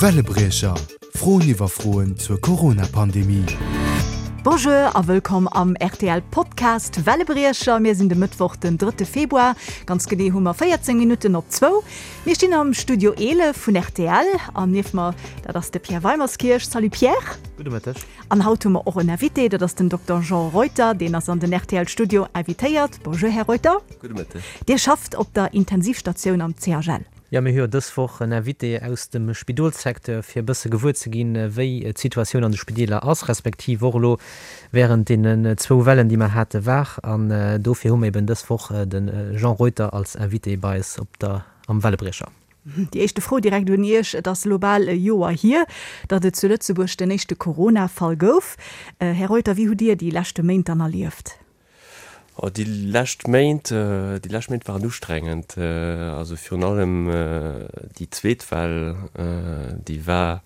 Wellebriecher, Froen iwwer Froen zur Corona-Pandemie. Bonjour a wëllkomm am rtl Podcast Wellebriecher. Mir sinn de Mëttwoch den drëtte Februar. Ganz genee hu mer 14 Minutten op zwou. Mir stinn am Studio 11 vun rtl an nieft mer, dat ass de Pierre Weimerskirch. Salut Pierre. Gudde Mëtteg. An haut hu mer och en Invité, dat ass den Dokter Jean Reuter. Deen ass an den rtl Studio invitéiert. Bonjour Här Reuter. Gudde Mëtteg. Dir schafft op der Intensivstatioun am CHL. Jo, mir hu jo dës Woch en Invité aus dem Spidolssecteur, fir e bësse gewuer ze ginn, wéi d'Situatioun an de Spideeler ass, respektiv och elo wärend deenen zwou Wellen, déi mer hate war. An dofir hu mer eben dës Woch de Jean Reuter als Invité bei eis op der am Wellebriecher. Déi éischte Fro direkt un Iech, Et ass elo bal e Joer hier, datt et zu Lëtzebuerg den éischte Corona-Fall gouf. Här Reuter, wéi hutt Dir déi leschte Méint dann erlieft? Oh, déi lescht Méint, déi lescht Méint waren ustrengend. Also virun allem déi zweet Well, déi war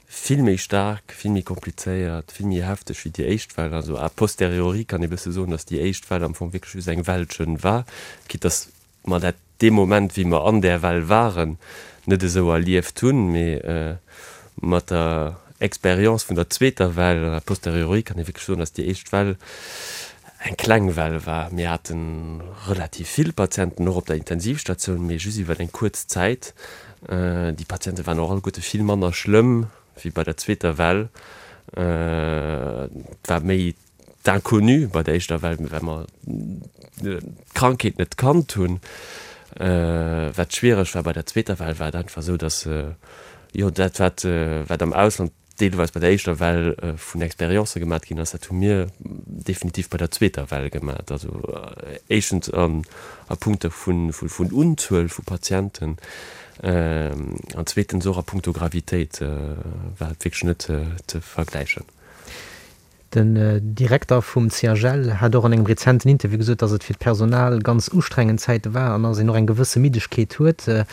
vill méi staark, vill méi komplizéiert, vill méi hefteg wéi déi éischt Well. Also a posteriori kann ee bësse soen, datt déi éischt Well am Fong wierklech just eng Wellchen war, quitte datt mer dat dee Moment, wéi mer an där Well waren, net esou erlieft hunn, mee mat der Expérience vun der zweeter Well, a posteriori kann ee wierklech soen, dass déi éischt Well eng kleng Well war. Mir hate relativ vill Patienten och op der Intensivstatioun, mee just iwwer eng kuerz Zäit. Déi Patiente waren och alleguerte vill manner schlëmm wéi bei der zweeter Well. Et war méi D'inconnu bei der éischter Well, well mer d'Krankheet net kannt hunn. Wat schwiereg war bei der zweeter Well, war et einfach esou, datt, jo, dat wat, wat am Ausland deelweis bei der éischter Well vun Expériencë gemat ginn ass, dat hu mir definitiv bei der zweeter Well gemat. Also éischtens a Punkto vun Unzuel vu Patienten an zweetens och a punkto Gravitéit war et wierklech net ze vergläichen. Den Direkter vum CHL hat och an engem rezenten Interview gesot, datt et fir d'Personal ganz ustrengend Zäite war an datt een och eng gewësse Middegkeet huet.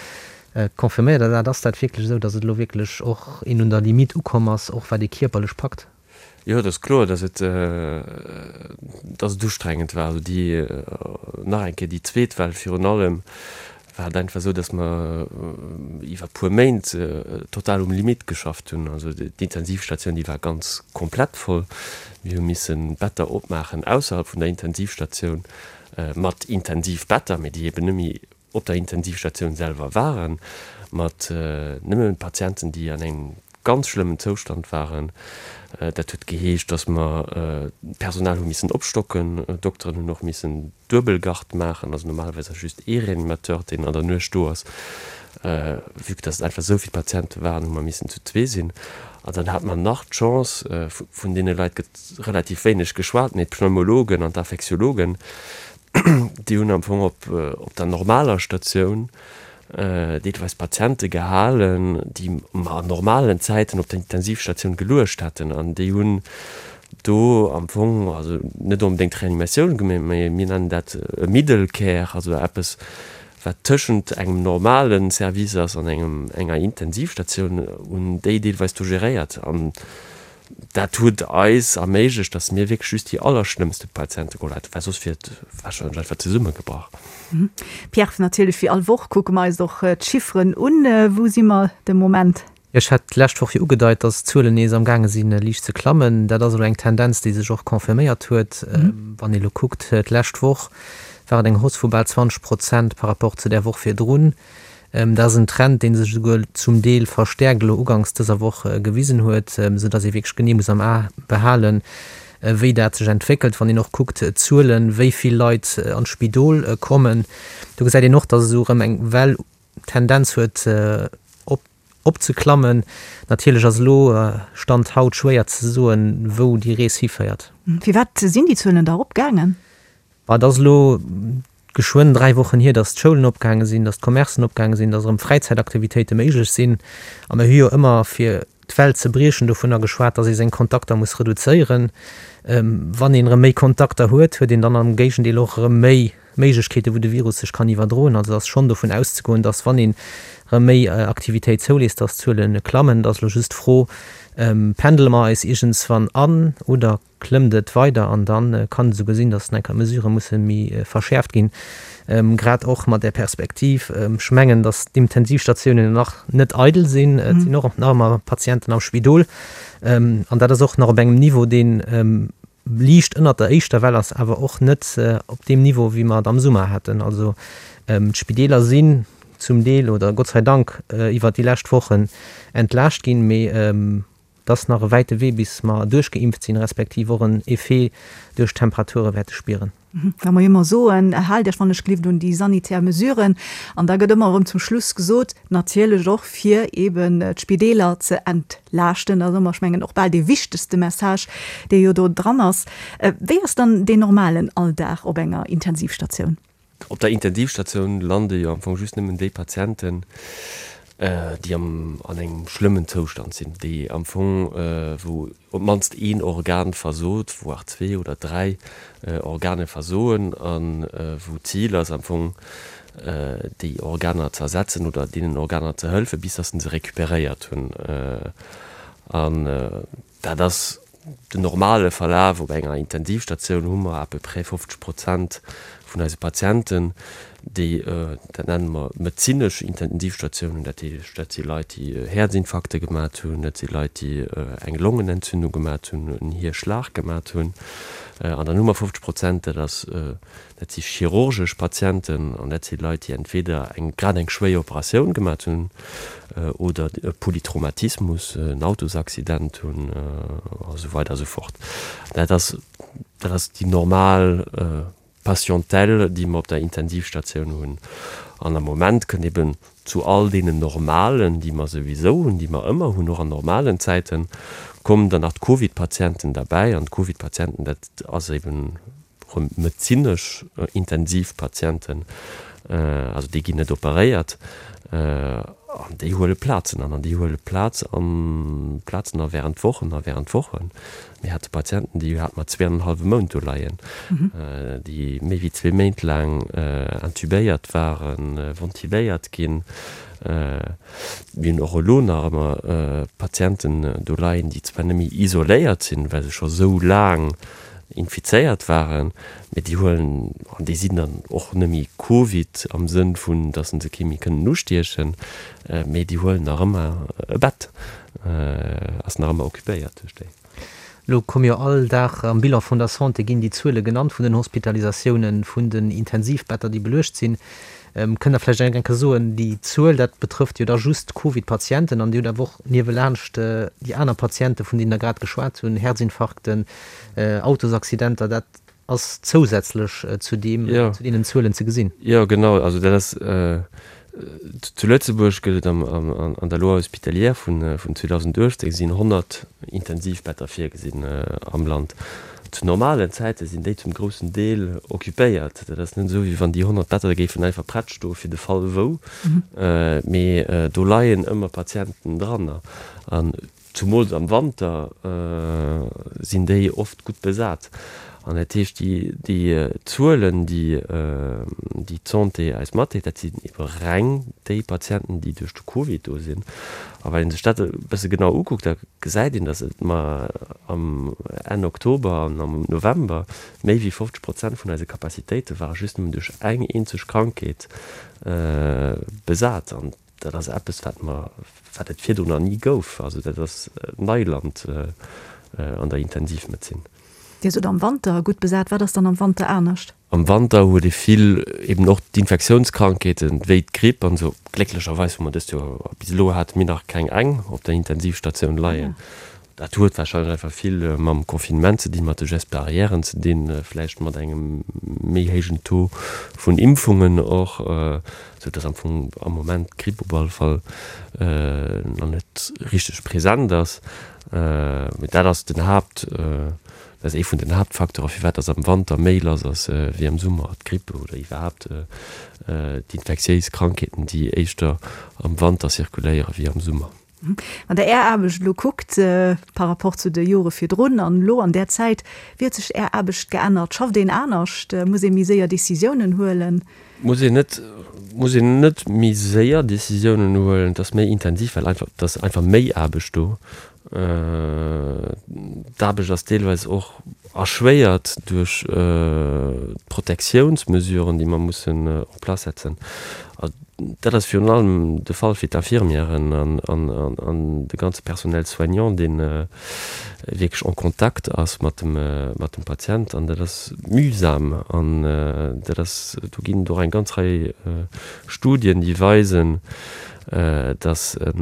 Confirméiert Der dat? Ass dat wierklech esou, datt et elo wierklech och een un der Limite ukomm ass, och wat ee kierperlech packt? Jo, et ass kloer, datt et, datt et ustrengend war. Also déi, nach eng Kéier, déi zweet Well virun allem war et einfach esou, dass mer iwwer puer Méint total um Limit geschafft hunn. Also d'Intensivstatioun, déi war ganz komplett voll. Mir hu missen Better opmaachen ausserhalb vun der Intensivstatioun mat Intensivbetter, mee déi eben net méi op der Intensivstatioun selwer waren, mat nëmmen Patienten, déi an engem ganz schlëmmen Zoustand waren. Dat huet geheescht, dass mer d'Personal hu missen opstocken. D'Dokteren hunn och missen duebel Garde maachen, also normalerweis ass just ee Reanimateur, deen an der Nuecht do ass. Vue que dass et einfach esou vill Patiente waren, hu mer missen zu zwee sinn. An dann hate mer nach d'Chance, vun deene Leit gëtt relativ wéineg geschwat, mee d'Pneumologen an d'Infektiologen, déi hunn am Fong op der normaler Statioun deelweis Patiente gehalen, déi mer an normalen Zäiten op der Intensivstatioun geluecht hätten. An déi hunn do am Fong, also net onbedéngt Reanimatioun gemaach, mä mir nennen dat e Middle Care, also eppes, wat tëschent engem normale Service ass an engem, enger Intensivstatioun, hunn déi deelweis do geréiert. An Dat huet eis erméiglecht, dass mir wierklech just déi allerschlëmmste Patiente geholl haten, well soss wier et warscheinlech einfach zesummegebrach. Pierre, natierlech wéi all Woch kucke mer eis och d'Chifferen un. Wou si mer de Moment? Ech hat d'lescht Woch jo ugedeit, dass d'Zuelen nees am gaange sinn, liicht ze klammen. Dat ass elo eng Tendenz, déi sech och confirméiert huet. Wann ee elo kuckt, d'lescht Woch war et eng Hausse vu bal 20 Prozent par rapport zu där Woch virdrun. Dat ass en Trend, dee sech esouguer zum Deel verstäerkt elo uganks dëser Woch gewisen huet, esou datt ee wierklech genee muss am A behalen, wéi dat sech entwéckelt. Wann een och kuckt d'Zuelen, wéi vill Leit an d'Spidol kommen, do gesäit een och, datt esou erëm eng Well d'Tendenz huet op opzeklammen. Natierlech ass elo, Stand haut, schwéier ze soen, wou déi Rees hiféiert. Firwat sinn déi Zuelen da eropgaangen? Et ass elo geschwënn 3 Wochen hier, datt d'Schoulen opgaange sinn, datt d'Commercen opgaange sinn, datt erëm Fräizäitaktivitéite méiglech sinn. A mir hu jo ëmmer, fir d'Well ze briechen, dovunner geschwat, datt ee seng Kontakter muss reduzéieren. Wann een erëm méi Kontakter huet, huet een dann am Géigendeel och erëm méi. Méiglechkeeten, wou de Virus sech kann iwwerdroen. Also ass schonn dovun auszegoen, dass wann een erëm méi Aktivitéit zouléisst, dass d'Zuele klammen. Et ass elo just d'Fro, Pendele mer eis iergendswann an oder klëmmt et weider? An da kann et esouguer sinn, dass enker d'Mesurë musse méi verschäerft ginn, grad och mat där Perspektiv. Ech mengen, dass d'Intensivstatiounen nach net eidel sinn. Et sinn och nach ëmmer Patienten am Spidol. An dat ass och nach op engem Niveau, deen liicht ënnert der éischter Well ass, awer och net op deem Niveau, wéi mer et am Summer haten. Also d'Spideeler sinn zum Deel oder Gott sei Dank iwwert déi lescht Wochen entlaascht ginn, mee et ass nach e wäite Wee, bis mer duerchgeimpft sinn, respektiv och en Effet duerch d'Temperature wäerte spieren. Wa mer jo ëmmer soen, Haalt Iech wann ech gelift un déi sanitär Mesuren, an da gëtt ëmmer erëm zum Schluss gesot, natierlech och fir eeben d'Spideeler ze entlaaschten. Dat ass ëmmer, ech mengen, och bal dee wichtegste Message, dee jo do dran ass. Wéi ass dann deen normalen Alldag op enger Intensivstatioun? Op der Intensivstatioun lande jo am Fong just nëmmen déi Patienten, déi am an engem schlëmmen Zoustand sinn, déi am Fong, wou op d'mannst een Organ versot, voire zwee oder dräi Organe versoen a wou d'Zil ass am Fong, déi Organer ze ersetzen oder deenen Organer ze hëlfe bis datt se se recuperéiert hunn. An Dat ass den normale Verlaf. Op enger Intensivstatioun hu mer à peu près 50 Prozent vun eise Patienten, déi, dat nenne mer medezinesch Intensivstatiounen, dat heescht, dat si Leit, déi Häerzinfarkte gemat hunn, dat si Leit, déi eng Longenentzündung gemat hunn, en Hierschlag gemat hunn. An dann hu mer 50 Prozent, dat ass Dat si chirurgesch Patienten an dat si Leit, déi entweder eng grad eng schwéier Operatioun gemat hunn oder e Polytraumatismus, en Autosaccident hunn a sou weider a sou fort. Dat ass, dat ass déi normal Patientèle, déi mer op der Intensivstatioun hunn. An am Moment kënnt eben zu all deenen normalen, déi mer souwisou hunn, déi mer ëmmer hunn, och an normalen Zäiten, kommen dann nach d'Covid-Patienten derbäi. An d'Covid-Patienten, dat ass eben Rëm medezinesch intensiv Patienten, also déi ginn net operéiert an déi huele Plazen an. An déi huele Plaz an, Plazen a während Wochen a während Wochen. Mir hate Patienten, déi hate mer zweeanenhallwe Mount do leien, déi méi wéi zwee Méint laang intubéiert waren, ventiléiert ginn. Mir hunn och elo nach ëmmer Patienten do leien, déi zwar net méi isoléiert sinn, well se scho sou laang infizéiert waren, mee déi huelen, an déi sinn dann och net méi Covid am Sënn vun, datt se kee méi kënnen ustiechen, mee déi huelen nach ëmmer e Bett, ass nach ëmmer occupéiert duerch déi. Elo komme jo all Dag am Bilan vun der Santé ginn déi Zuele genannt vun den Hospitalisatiounen, vun den Intensivbetter, déi beluecht sinn. Kënnt Der vläicht eng Kéier soen, déi Zuel, dat betrëfft jo da just d'Covid-Patienten an Dir hutt awer och niewelaanscht déi aner Patienten, vun deenen Der grad geschwat hunn, Herzinfarkten, Autosaccidenter, dat ass zousätzlech zu deem, zu deenen Zuelen ze gesinn. Jo, genau. Also dat ass, zu Lëtzebuerg gëtt et an der Loi hospitalière vun 2018 sinn 100 Intensivbetter virgesinn am Land. Zu normalen Zäite sinn déi zum groussen Deel occupéiert. Dat ass net esou, wéi wann déi 100 Better géifen einfach prett stoe fir de Fall wou, mee do leien ëmmer Patienten dran. An zumools am Wanter sinn déi oft gutt besat. An dat heescht, déi Zuelen, déi d'Santé eis matdeelt, dat sinn ebe reng déi Patienten, déi duerch de Covid do sinn. A wann ee sech dat e bësse genau ukuckt, da gesäit een, datt et mer am Enn Oktober an am November méi wéi 50 Prozent vun eise Capacitéite ware just nëmmen duerch eng eenzeg Krankheet besat. An dat ass eppes, wat mer, wat et virdrun nach ni gouf. Also dat ass Neiland an der Intensivmedezin. Dir sot am Wanter gutt besat. Wat ass dann am Wanter anescht? Am Wanter huet ee vill eben och d'Infektiounskrankheeten, wéi d'Gripp an esou. Glécklecherweis hu mer dëst Joer, bis elo hate mir nach keng eng op der Intensivstatioun leien. Dat huet warscheinlech einfach vill mam Confinement ze dinn, mat de Gestes barrièren ze dinn, vläicht mat engem méi héijen Taux vun Impfungen och, esou dass am Fong am Moment d'Gripp op alle Fall nach net richteg present ass. Mee dat ass den Haapt. Dat ass ee vun den Haaptfacteure firwat dass am Wanter méi lass ass wéi am Summer, d'Grippe oder iwwerhaapt d'infektiéis Krankheeten, déi éischter am Wanter zirkuléiere wéi am Summer. Wann Der Är Aarbecht elo kuckt par rapport zu de Jore virdrun an elo an där Zäit, wéi huet sech Är Aarbecht geännert? Schafft een anescht? Muss ee méi séier Decisiounen huelen? Muss een net, muss een net méi séier Decisiounen huelen. Et ass méi intensiv, well einfach, et ass einfach méi Aarbecht do. D'Aarbecht ass deelweis och erschwéiert duerch d'Protektiounsmesuren, déi mer mussen en place setzen. Dat ass virun allem de Fall fir d'Infirmièren an de ganze Personnel soignant, dee wierklech en contact ass mat dem Patient. An dat ass mühsam. An dat ass, do ginn et och eng ganz Rei Studien, déi weisen, dass e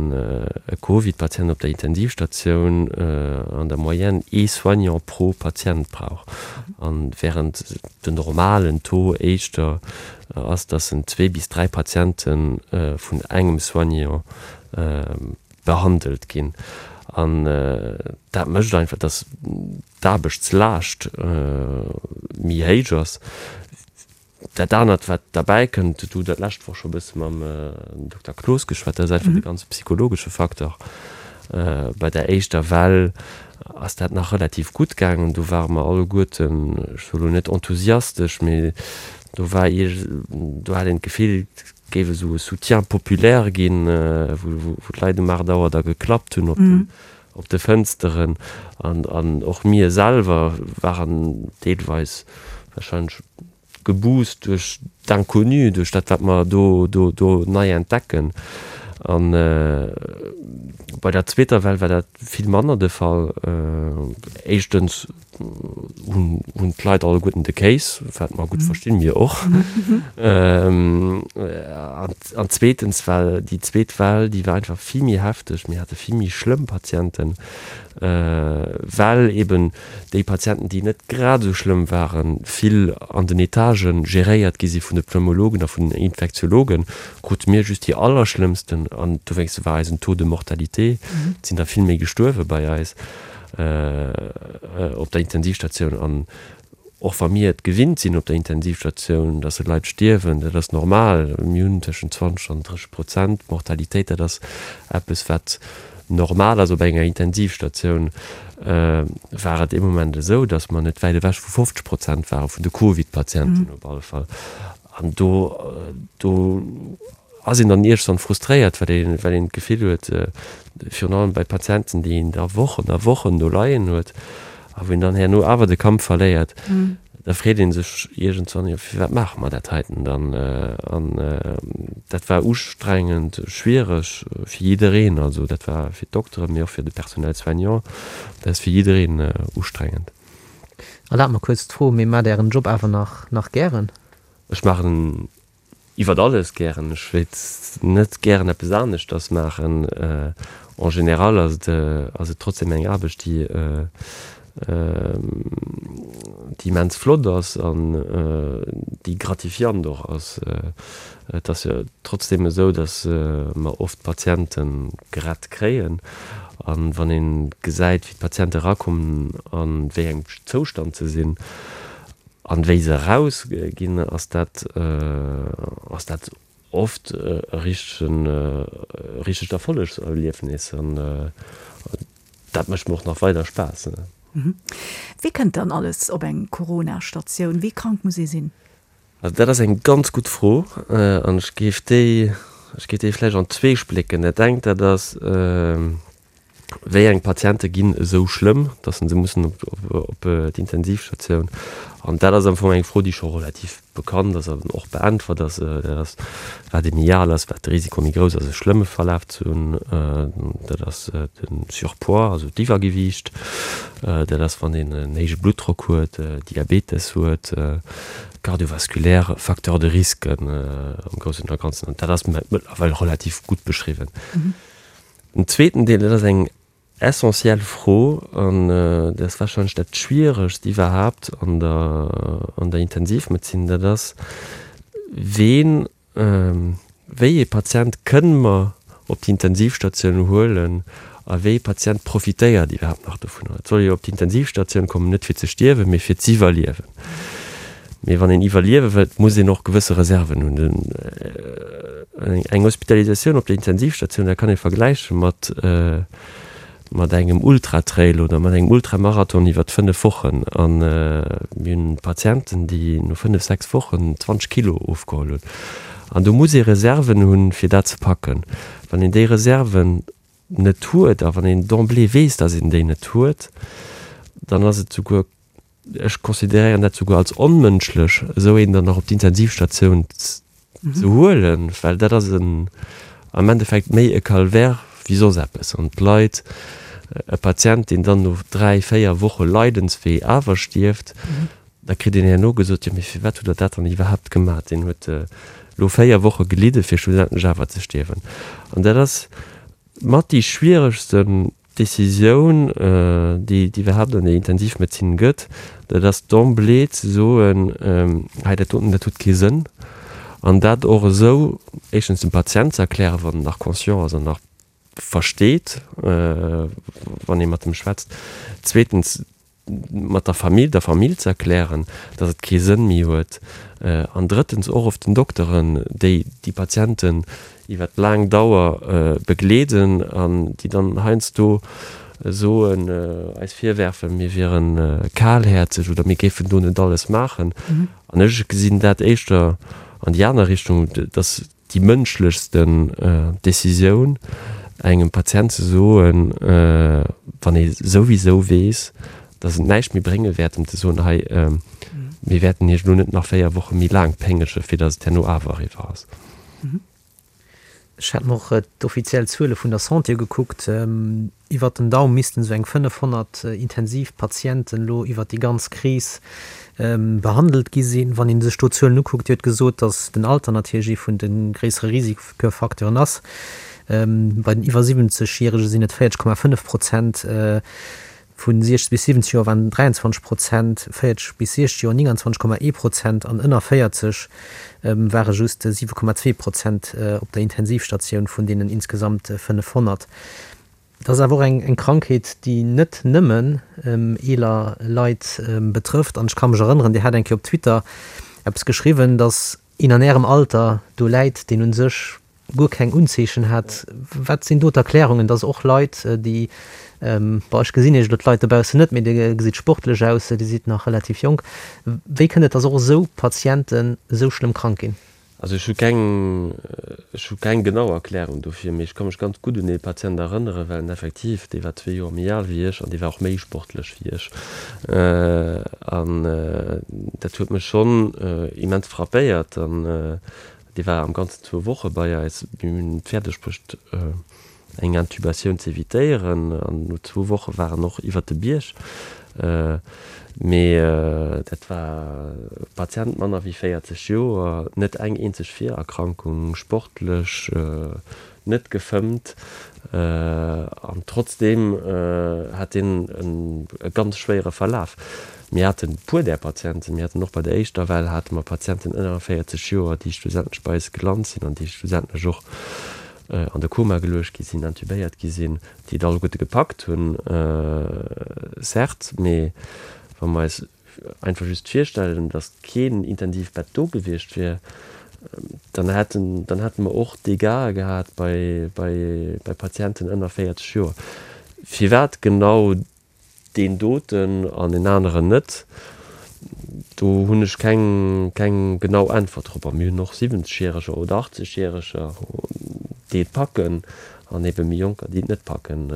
Covid-Patient op der Intensivstatioun an der Moyenne ee Soignant pro Patient brauch, an während den normalen Taux éischter ass, dass en zwee bis dräi Patiente vun engem Soignant behandelt ginn. An dat mécht einfach, dass d'Aarbechtslaascht méi héich ass. Dat anert, wat derbäi kënnt, do hutt Der d'lescht Woch scho e bësse mam Dokter Cloos geschwat, dat ass einfach de ganze psychologesche Facteur. Bei der éischter Well ass dat nach relativ gutt gaangen. Do ware mer alleguerten, ech soe lo net enthusiastesch, mee do war ierg, do hat een d'Gefill, et géif esou e Soutien populaire ginn, wou d'Leit um 8 Auer da geklappt hunn op den, op de Fënsteren. An och mir selwer waren deelweis warscheinlech geboost duerch d'Inconnu, duerch dat, wat mer do, do, do nei entdecken. A bei der zweeter Well war dat vill manner de Fall. Éischtens hunn, hunn d'Leit alleguerten de Kéis, wat mer gutt verstinn, mir och. An, an zweetens war déi zweet Well, déi war einfach vill méi hefteg. Mir hate vill méi schlëmm Patienten, well eben déi Patienten, déi net grad esou schlëmm waren, vill an den Etagë geréiert gi si vun de Pneumologen a vun den Infektiologen, krute mir just déi allerschlëmmsten an dowéinst war eisen Taux de mortalité, et sinn der vill méi gestuerwe bei eis op der Intensivstatioun. An och wa mir et gewinnt sinn op der Intensivstatioun, dass Leit stierwen, dat ass normal, mir hunn tëschent 20 an 30 Prozent Mortalitéit, dat ass eppes wat Normal ass op enger Intensivstatioun, war et ee Moment esou, datt mer net wäit ewech vu 50 Prozent ware vun de Covid-Patienten op alle Fall. An do, do ass een dann iergendwann frustréiert, well een, well een d'Gefill huet, virun allem bei Patienten, déi een da Wochen a Wochen do leien huet a wou een dann herno awer de Kampf verléiert, Da freet ee sech iergendwann, jo firwat maache mer dat heiten dann? An dat war ustrengend, schwiereg fir jiddereen. Also dat war fir d'Dokteren, mee och fir de Personnel soignant, dat ass fir jiddereen ustrengend. Erlaabt mer kuerz d'Fro, mee maacht Ären Job awer nach nach gären? Ech maachen en Iwwert alles gären. Ech wéilt net gären eppes aneschters maachen. En général ass et ass et trotzdem eng Aarbecht, déi déi immens flott ass an déi gratifiant och ass. Et ass jo trotzdem esou, datt mer oft Patiente gerett kréien. An wann ee gesäit, wéi d'Patiente erakommen a wéi engem Zoustand se sinn, An wéi se eraus ginn, ass dat ass dat oft e richtegen e richtegt Erfollegserliefnis an dat mécht mir och nach weider Spaass. Wie kënnt dann alles op eng Corona-Statioun? Wéi krank muss ee sinn? Also dat ass eng ganz gutt Fro an ech géif déi ech géif déi vläicht an zwee splécken. Dat engt dat ass, Wéi eng Patiente ginn esou schlëmm, datt se mussen op d'Intensivstatioun? An dat ass am Fong eng Fro, déi scho relativ bekannt ass an och beäntwert ass. Dat ass, wat ee méi al ass, wat de Risiko méi grouss ass, e schlëmme Verlaf ze hunn. Dat ass de Surpoids, also d'Iwwergewiicht. Dat ass, wann een en héije Bluttdrock huet, Diabetes huet, kardiovaskulär Facteurs de risque am Groussen a Ganzen. An dat ass mëttlerweil relativ gutt beschriwwen. Den zweeten Deel, dat ass eng essentiell Fro an dat ass warscheinlech dat Schwieregst iwwerhaapt an der, an der Intensivmedezin, dat ass, Ween, wéi ee Patient kënne mer op d'Intensivstatioun huelen a wéi ee Patient profitéiert iwwerhaapt nach dovunner? Et soll jo op d'Intensivstatioun kommen, net fir ze stierwen, mee fir z'iwwerliewen. Mee wann een iwwerliewe wëllt, muss een och gewësse Reserven hunn. Eng Hospitalisatioun op der Intensivstatioun, dat kann ee vergläiche mat mat engem Ultratrail oder mat engem Ultramarathon iwwert 5 Wochen. A mir hunn Patienten, déi no 5, 6 Wochen 20 Kilo ofgeholl hunn. An do muss ee Reserven hunn, fir dat ze packen. Wann een déi Reserven net huet a wann een d'emblée weess, datt een déi net huet, dann ass et souguer, ech consideréieren dat souguer als onmënschlech, esou een dann nach op d'Intensivstatioun ze huelen, well dat ass en am Endeffekt méi e Calvaire wéi soss eppes. An d'Leit, e Patient, deen dann no 3, 4 Woche Leidenswee awer stierft, da kritt een herno gesot, jo mee firwat hutt Der dat dann iwwerhaapt gemaach, deen huet elo 4 Woche gelidde fir schlussendlech awer ze stierwen. An dat ass mat déi schwieregsten Decisioun, déi et iwwerhaapt an der Intensivmedezin gëtt, dat ass d'emblée ze soen, hei dat doten, dat huet kee Sënn. An dat och esou éischtens dem Patient ze erklären, wann en nach conscient ass an nach versteet, wann ee mat em schwätzt. Zweetens mat der Famill, der Famill ze erklären, datt et kee Sënn méi huet, an drëttens och of den Dokteren, déi déi Patienten iwwer laang Dauer begleeden an déi dann heiansdo soen, eis virwerfen, mir wiere kalhäerzeg oder mir géifen do net alles maachen. An ech gesinn dat éischter an déi aner Richtung, datt déi mënschlechsten Decisioun, engem Patient ze soen, wann ee souwisou weess, datt et näischt méi brénge wäert, em ze soen, hei, mir wäerten Iech elo net nach 4 Woche méi laang péngege fir datt et herno awer eriwwer ass. Ech hat mer och d'offiziell Zuele vun der Santé ugekuckt. Iwwert den Daum missten esou eng 500 Intensivpatienten elo iwwert déi ganz Kris behandelt gi sinn. Wann ee sech do d'Zuelen ukuckt, Dir hutt gesot, datt den Alter natierlech ee vun de gréissere Risikofacteuren ass. Bei den iwwer 70 Järege sinn et 40,5 Prozent, vu 60 bis 70 Joer waren et 23 Prozent, 40 bis 60 Joer 29,1 Prozent an ënner 40 ware just 7,2 Prozent op der Intensivstatioun vun deenen insgesamt 500. Et ass awer och eng Krankheet, déi net nëmmen eeler Leit betrëfft. An ech ka mech erënneren, Dir hat eng Kéier op Twitter eppes geschriwwen, datt een an Ärem Alter do läit, deen u sech guer keng Unzeechen hat. Wat sinn do d'Erklärungen, datt och Leit, déi, bon, ech gesinn Iech elo d'Leit dobaussen net, mee Dir gesitt sportlech aus, Dir sidd nach relativ jonk, wéi kënnt et, datt och esou Patienten esou schlëmm krank ginn? Also ech hu keng, ech hu keng genau Erklärung dofir, mee ech ka mech ganz gutt un ee Patient erënneren, well en effektiv, dee war zwee Joer méi al wéi ech an dee war och méi sportlech wéi ech. An dat huet mech schonn immens frappéiert. An dee war am Ganzen zwou Woche bei eis. Mir hunn et fäerdeg bruecht, eng Intubatioun ze evitéieren an no zwou Woche war en och iwwert de Bierg. Mee dat war e Patient manner wéi 40 Joer, net eng eenzeg Virerkrankung, sportlech, net gefëmmt an trotzdeem hat deen e ganz schwéiere Verlaf. Mir haten e puer där Patienten. Mir haten och bei der éischter Well hate mer Patienten ënner 40 Joer, déi schlussendlech bei eis gelant sinn an déi schlussendlech och an de Koma geluecht gi sinn, intubéiert gi sinn, déi et alleguerte gepackt hunn, certes, mee wa mer eis einfach just virstellen, datt keen Intensivbett do gewiescht wier, dann hätten, dann hätte mer och Dégâtë gehat bei, bei, bei Patienten ënner 40 Joer. Firwat genau Deen doten an deen aneren net, do hunn ech keng, keng genau Äntwert drop. A mir hunn och 70 Järeger oder 80 Järeger, déi et packen, an ebe méi Jonker, déi et net packen,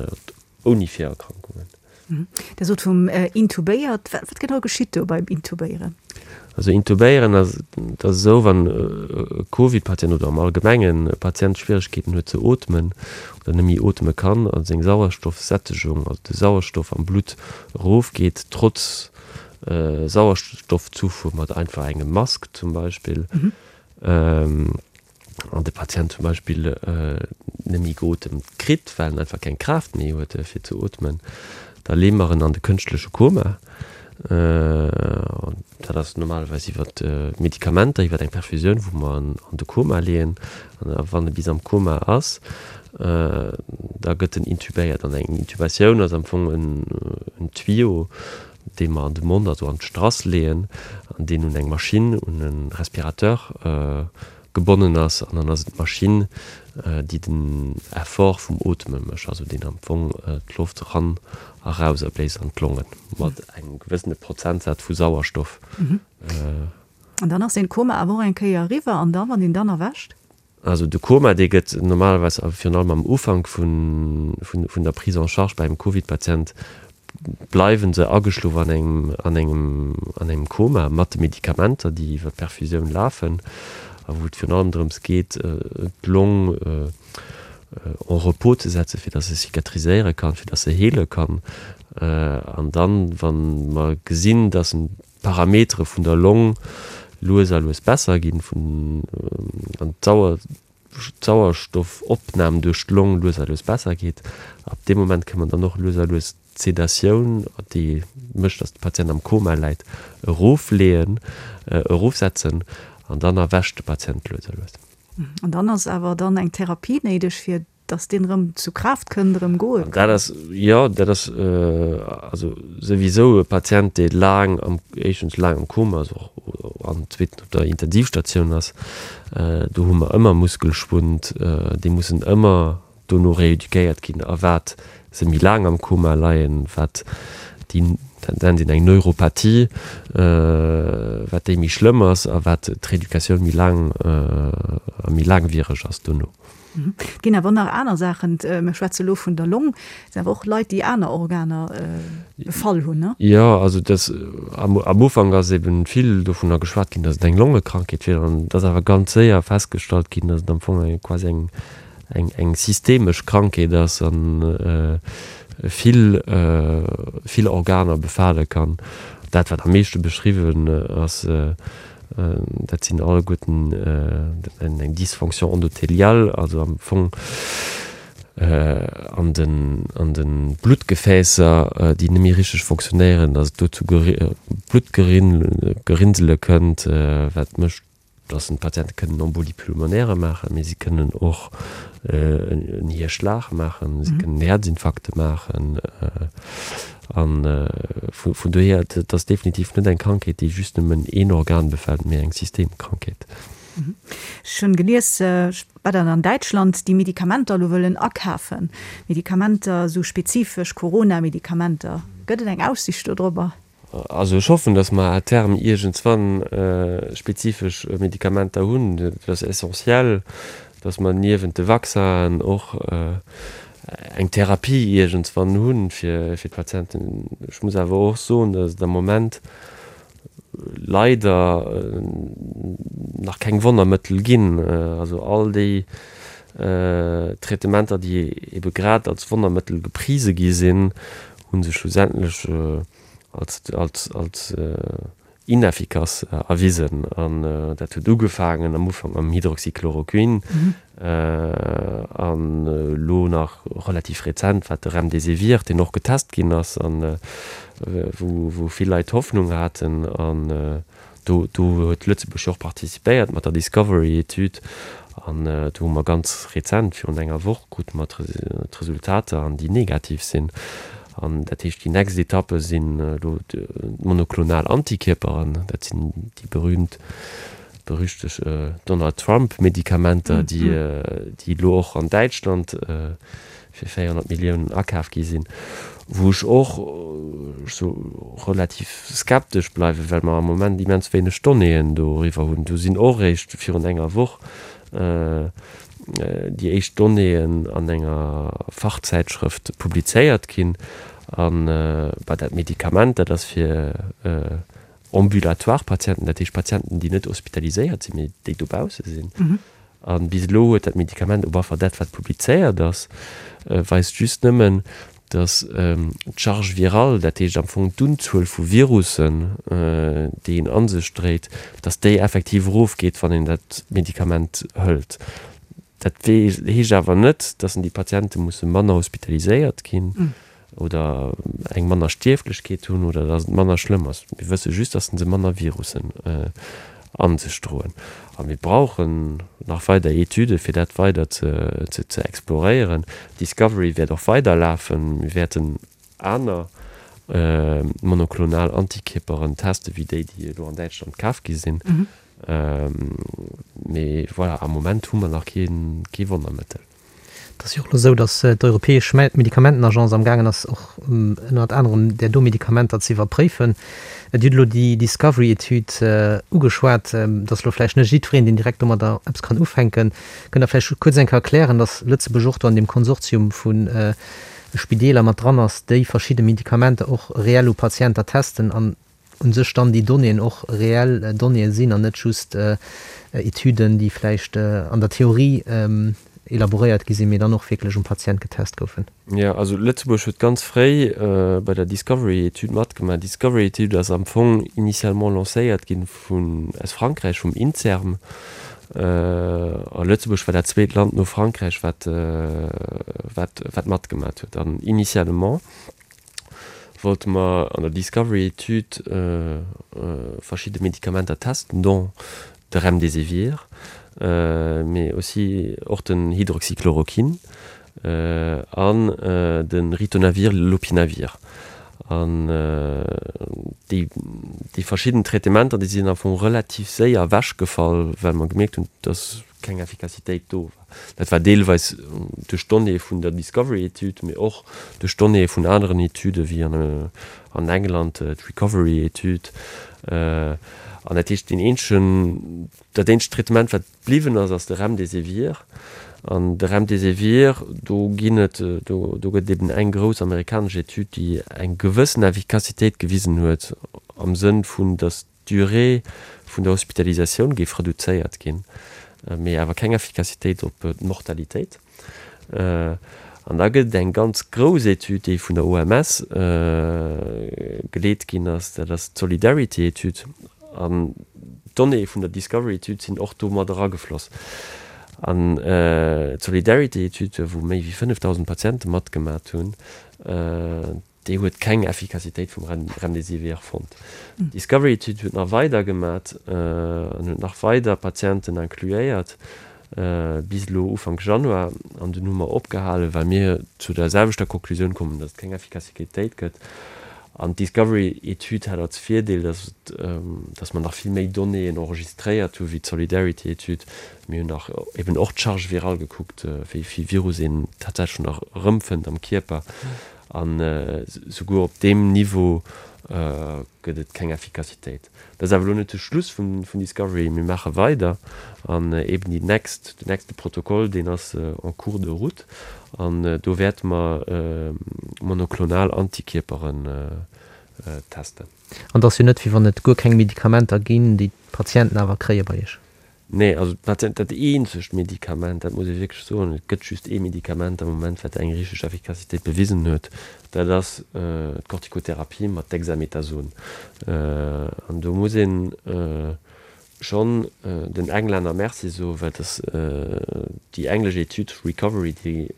ouni Virerkrankungen. Dir sot vum intubéiert. Wat genau geschitt do beim Intubéieren? Also intubéieren ass, dat ass esou, wann e Covid-Patient oder am Allgemengen e Patient Schwieregkeeten huet ze ootmen oder net méi ootme kann a seng Sauerstoffsättegung, also de Sauerstoff am Blutt erofgeet, trotz Sauerstoffzufuhr mat einfach engem Mask zum Beispill. An de Patient zum Beispill net méi geotemt kritt, well en einfach keng Kraaft méi huet fir ze ootmen, da leeë mer en an de kënschtleche Koma. Dat ass normalerweis iwwer Medikamenter, iwwer eng Perfusioun, wou mer en an de Koma leeën. An wann e bis am Koma ass, da gëtt en intubéiert. An eng Intubatioun ass am Fong en Tuyau. dee mer an de Mond, also an d'Strass leeën, an deen un eng Maschinn, un e Respirateur gebonnen ass. An dann ass et d'Maschinn, déi den Effort vum Ootme mécht, also deen am Fong d'Loft eran a raus erbléist an d'Longen, mat engem gewëssene Prozentsaz vu Sauerstoff. An dann ass deen Koma awer och eng Kéier eriwwer, an da wann een dann erwächt? Also de Koma, dee gëtt normalerweis, a virun allem am Ufank vun der Prise en charge bei engem Covid-Patient, bleiwe se ageschlof an engem, an engem, an engem Koma mat de Medikamenter, déi iwwer d'Perfusioun lafen a wou et virun allem drëms geet, d'Long en repos ze setzen, fir datt se cicatriséiere kann, fir datt se heele kann. An dann, wa mer gesinn, datt en d'Parametere vun der Long lues a lues besser ginn, vun an d'Sauerstoffopnam duerch d'Long lues a lues besser geet. Ab deem Moment kënne mer dann och lues a lues d'Sedatioun, déi mécht, datt de Patient am Koma läit, erofleeën, erofsetzen an dann erwächt de Patient lues a lues. An dann ass awer dann eng Therapie néideg, fir Dass deen erëm zu Kraaft kënnt, erëm goe kann. Dat ass, jo, dat ass also souwisou e Patient, dee laang am, éischtens laang am Koma ass och an zweetens op der Intensivstatioun ass, do hu mer ëmmer Muskelschwund, déi mussen ëmmer dono rééduquéiert ginn. A wat se méi laang am Koma leien, wat déi, dat nennt een eng Neuropathie, wat déi méi schlëmm ass a wat d'Rééducatioun méi laang a méi laangwiereg ass dono. Et ginn awer nach aner Saachen. Mir schwätze lo vun der Long. Et sinn awer och Leit, déi aner Organer befall hunn, ne? Jo, also dass am Ufank ass eben vill dovunner geschwat ginn, dass et eng Longekrankheet wier. An et ass awer ganz séier festgestallt ginn, dass et am Fong eng quasi eng eng eng systemesch Krankheet ass a vill vill Organer befale kann. Dat wat am meeschte beschriwwen ass, Dat sinn alleguerten eng Dysfonction endothéliale, also am Fong an den, an de Bluttgefäässer, déi net méi richteg fonctionnéieren, datt et do zu Bluttgerinnsele kënnt, wat mécht, datt d'Patiente kënnen Embolie pulmonaire maachen, mee si kënnen och en Hierschlag maachen, si kënnen Häerzinfarkte maachen. A vun dohier, et ass definitiv net eng Krankheet, déi just nëmmen een Organ befält, mee eng Systemkrankheet. Ech hunn gelies, wat an an Däitschland déi Medikamenter elo wëllen akafen, Medikamenter, esou spezifesch Corona-Medikamenter. Gëtt et eng Aussicht dodrobber? Also ech hoffen, datt mer à terme iergendswann spezifesch Medikamenter hunn. Et ass essentiell, datt mer niewent de Vaccinen och eng Therapie iergendswann hu fir d'Patienten. Ech muss awer och soen, datt et am Moment leider nach keng Wonnermëttel ginn. Also all déi Traitementer, déi ebe grad als Wonnermëttel geprise gi sinn, hu sech schlussendlech als, als, als ineffikass erwisen. An dat huet ugefaangen am Ufank mam Hydroxychloroquin an elo nach relativ rezent war de Remdesivir, deen och getest ginn ass an wou, wou vill Leit Hoffnung haten. An Do do huet Lëtzebuerg jo och participéiert mat der Discovery-Etüd an do hu mer ganz rezent, virun enger Woch, krute mer d'Resultater an déi negativ sinn. An dat heescht, déi nächst Etappe sinn elo d'monoklonal Antikierperen, dat sinn déi berühmt, berüchteg Donald Trump-Medikamenter, déi déi elo och an Däitschland fir 400 Milliounen akaf gi sinn, wou ech och sou relativ skeptesch bleiwen, well mer am Moment immens wéineg Donnéeën doriwwer hunn. Do sinn och eréischt virun enger Woch déi éischt Donnéeën an enger Fachzäitschrëft publizéiert ginn. An bah, dat Medikament, dat ass fir ambulatoire Patienten, dat heescht Patienten, déi net hospitaliséiert sinn, mee déi dobausse sinn. A bis elo huet dat Medikament, op alle Fall dat wat publizéiert ass, weist just nëmmen, datt d'Charge virale, dat heescht am Fong d'Unzuel vu Virussen, déi een a sech dréit, datt déi effektiv erofgeet, wann een dat Medikament hëlt. Dat heescht awer net, datt déi Patiente musse manner hospitaliséiert ginn. Oder eng manner Stierflechkeet hunn oder dass et manner schlëmm ass. Mir wësse just, dass se manner Virussen a sech droen. A mir brauchen nach weider Etüde fir dat weider ze exploréieren. Discovery wäert och weiderlafen. Mir wäerten aner. monoklonal Antikierperen teste wéi déi, déi elo an Däitschland kaf gi sinn. Mee voilà, am Moment hu mer nach kee Wonnermëttel. Et ass jo och elo esou, datt d'Europäesch Medikamentenagence am gaangen ass, och ënnert anerem där do Medikamenter ze iwwerpréifen. Dir hutt elo déi Discovery-Etüd ugeschwat. Et ass elo vläicht net jiddwereen, deen direkt domadder eppes kann ufänken. Kënnt Der vläicht kuerz eng Kéier erklären, datt Lëtzebuerg och do an deem Konsortium vu Spideeler mat dran ass, déi verschidde Medikamenter och reell u Patienter testen an u sech dann déi Donnéeën och reell Donnéeë sinn an net just Etüden, déi vläicht an der Theorie elaboréiert gi sinn, mee dann och wierklech um Patient getest goufen. Jo, also Lëtzebuerg huet ganz fréi bei der Discovery-Etüd matgemaach. D'Discovery-Etüd ass am Fong initialement lancéiert gi vun, aus Frankräich, vum Inserm. A Lëtzebuerg war dat zweet Land no Frankräich, wat, wat, wat matgemaach huet. An initialement wollte mer an der Discovery-Etüd verschidde Medikamenter testen, dont de Remdesivir, mee aussi och den Hydroxychloroquine an de Ritonavir-Lopinavir. An déi, déi verschidden Traitementer, déi sinn am Fong relativ séier ewechgefall, well mer gemierkt hunn, dass keng Effikassitéit do war. Dat war deelweis duerch d'Donnéeë vun der Discovery-Etüd, mee och duerch d'Donnéeë vun aneren Etüde wéi an England d'Recovery-Etüd. An dat heescht, deen eenzegen, dat eenzegt Traitement, wat bliwwen ass, ass de Remdesivir. An de Remdesivir, do ginn et, do gëtt et eben eng grouss amerikanesch Etüd, déi eng gewëssen Effikassitéit gewisen huet am Sënn vun, datt d'Durée vun der Hospitalisatioun géif reduzéiert ginn, mee awer keng Effikassitéit op d'Mortalitéit. An da gëtt et eng ganz grouss Etüd, déi vun der OMS geleet ginn ass, dat ass d'Solidarity-Etüd. An d'Donnéeë vun der Discovery-Etüd sinn och do mat eragefloss. An d'Solidarity-Etüd, wou méi wéi 5.000 Patiente matgemat hunn, Déi huet keng Effikassitéit vum Remdesivir fonnt. D'Discovery-Etüd huet nach weider gemat an huet nach weider Patienten incluéiert, bis elo Ufank Januar. An dunn hu mer opgehalen, well mir zu der selwechter Konklusioun kommen, datt et keng Effikassitéit gëtt. An d'Discovery-Etüd hat als Virdeel, datt datt mer nach vill méi Donnéeën enregistréiert hu wéi d'Solidarity-Etüd. Mir hunn nach eben och d'Charge virale gekuckt, wéi vill Virus een tatsächlech nach erëmfënnt am Kierper. An souguer op deem Niveau gëtt et keng Effikassitéit. Dat ass awer elo net de Schluss vun Discovery. Mir maache weider an eben déi nächst, den nächste Protokoll, deen ass en cours de route an do wäerte mer monoklonal Antikierperen testen. An et ass jo net, wéi wann et guer keng Medikamenter ginn, déi d'Patienten awer kréie bei Iech. Nee, also dat dat eenzegt Medikament, dat muss ee wierklech soen, et gëtt just ee Medikament am Moment, wat eng richteg Effikassitéit bewisen huet, dat ass d'Corticotherapie mat Dexamethason. An do muss ee schonn den Englänner Merci soen, well dass déi englesch Etüd Recovery, déi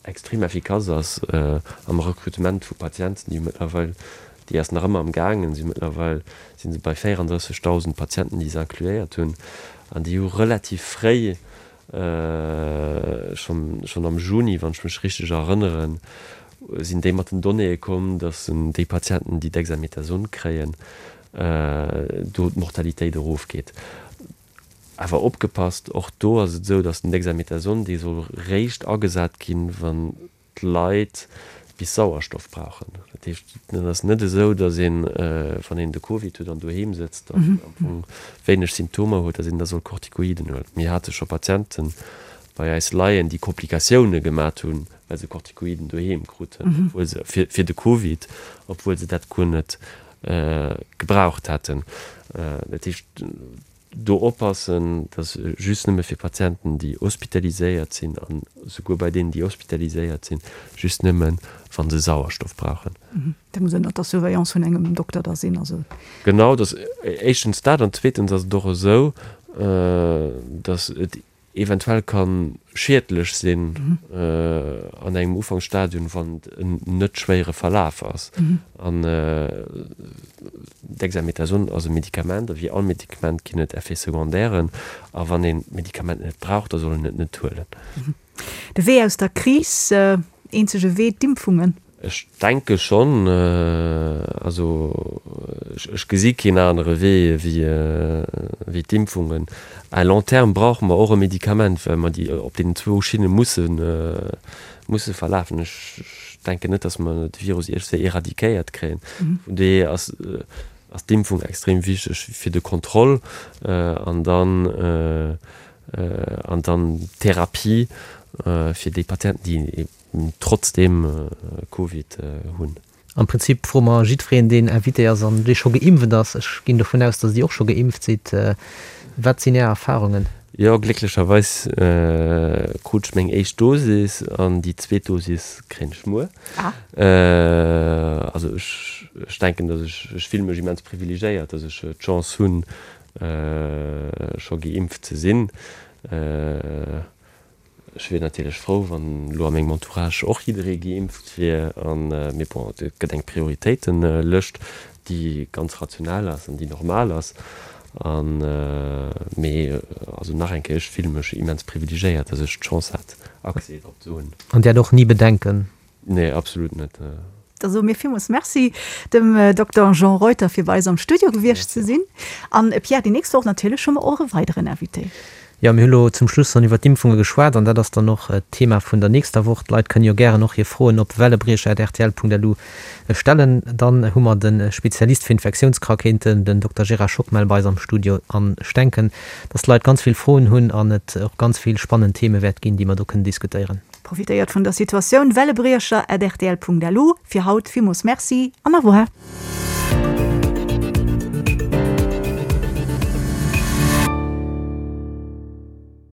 extrem effikass ass am Rekrutement vu Patienten, déi mëttlerweil, déi ass nach ëmmer am gaangen, si mëttlerweil si se bei 34.000 Patienten, déi se incluéiert hunn, an déi hu relativ fréi, schonn schonn am Juni, wann ech mech richteg erënneren, sinn déi mat den Donnéeë komm, datt déi Patienten, déi Dexamethason kréien, do d'Mortalitéit erofgeet. Awer opgepasst, och do ass et esou, datt den Dexamethason, dee soll réischt agesat ginn, wann d'Leit bis Sauerstoff brauchen. Dat heescht, et ass net esou, datt een, wann een de Covid huet an doheem sëtzt an am Fong wéineg Symptomer huet, datt een da soll Kortikoiden huelen. Mir hate scho Patiente bei eis leien, déi Komplikatioune gemat hunn, well se Kortikoiden doheem kruten, obwuel se, fir, fir de Covid, obwuel se dat guer net gebraucht hätten. Dat heescht, do oppassen, dass just nëmme fir Patienten, déi hospitaliséiert sinn, an souguer bei deenen, déi hospitaliséiert sinn, just nëmmen, wa se Sauerstoff brauchen. Dat muss ënnert der Surveillance vun engem Dokter da sinn, also. Genau, dass éischtens dat, an zweetens ass et och esou, dass et eventuell ka schiedlech sinn an engem Ufanksstadium, wann et en net schwéiere Verlaf ass. An Dexamethason ass e Medikament, a wéi all Medikament ginn et Effets secondairen. A wann een d'Medikament net brauch, da soll een et net huelen. De Wee aus der Kris, eenzege Wee, d'Impfungen. Ech denke schonn. Also ech gesi keen anere Wee wéi d'Impfungen. À long terme brauche mer och e Medikament, well mer déi op deenen zwou Schinne musse musse verlafen. Ech denken net, datt mer de Virus iergendwéi éradiquéiert kréien. Vun dohier ass ass d'Impfung extrem wichteg fir de Contrôle an dann an dann d'Therapie fir déi Patienten, déi trotzdeem Covid hunn. Am Prinzip froe mer jiddwereen, deen Invité ass an dee scho geimpft ass, ech ginn dovun aus, datt Dir och scho geimpft sidd, Wat sinn Är Erfarungen? Jo, glécklecherweis krut ech meng éischt Dosis an déi zweet Dosis kréien ech muer. Also ech denken, datt ech, ech fille mech immens privilegéiert, datt ech d'Chance hunn, scho geimpft ze sinn. Ech wier natierlech frou, wann elo a mengem Entourage och jidderee geimpft wier. Mee bon, et gëtt eng Prioritéitelëscht, déi ganz rational ass an déi normal ass. Mee also nach eng Kéier, ech fille mech immens privilegéiert, datt ech d'Chance hat, Accès drop ze hunn. An Dir hat och ni Bedenken? Nee, absolut net. Da soe mir villmools Merci dem Dokter Jean Reuter fir bei eis am Studio gewiescht ze sinn. An Pierre, déi nächst Woch natierlech hu mer och e weideren Invité. Jo, mir hu lo zum Schluss dann iwwer d'Impfunge geschwat an dat ass dann och d'Thema vun der nächster Woch. D'Leit kënnen jo gären och hir Froen op wellebriecher@rtl.lu stellen. Dann hu mer de Spezialist fir Infektiounskrankheeten, den Dokter Gérard Schockmel bei eis am Studio an ech denken, dass d'Leit ganz vill Froen hunn an et och ganz vill spannend Theme wäert ginn, déi mer do kënnen diskutéieren. Profitéiert vun der Situatioun, Wellebriecher at rtl.lu. Fir haut villmools Merci an au revoir.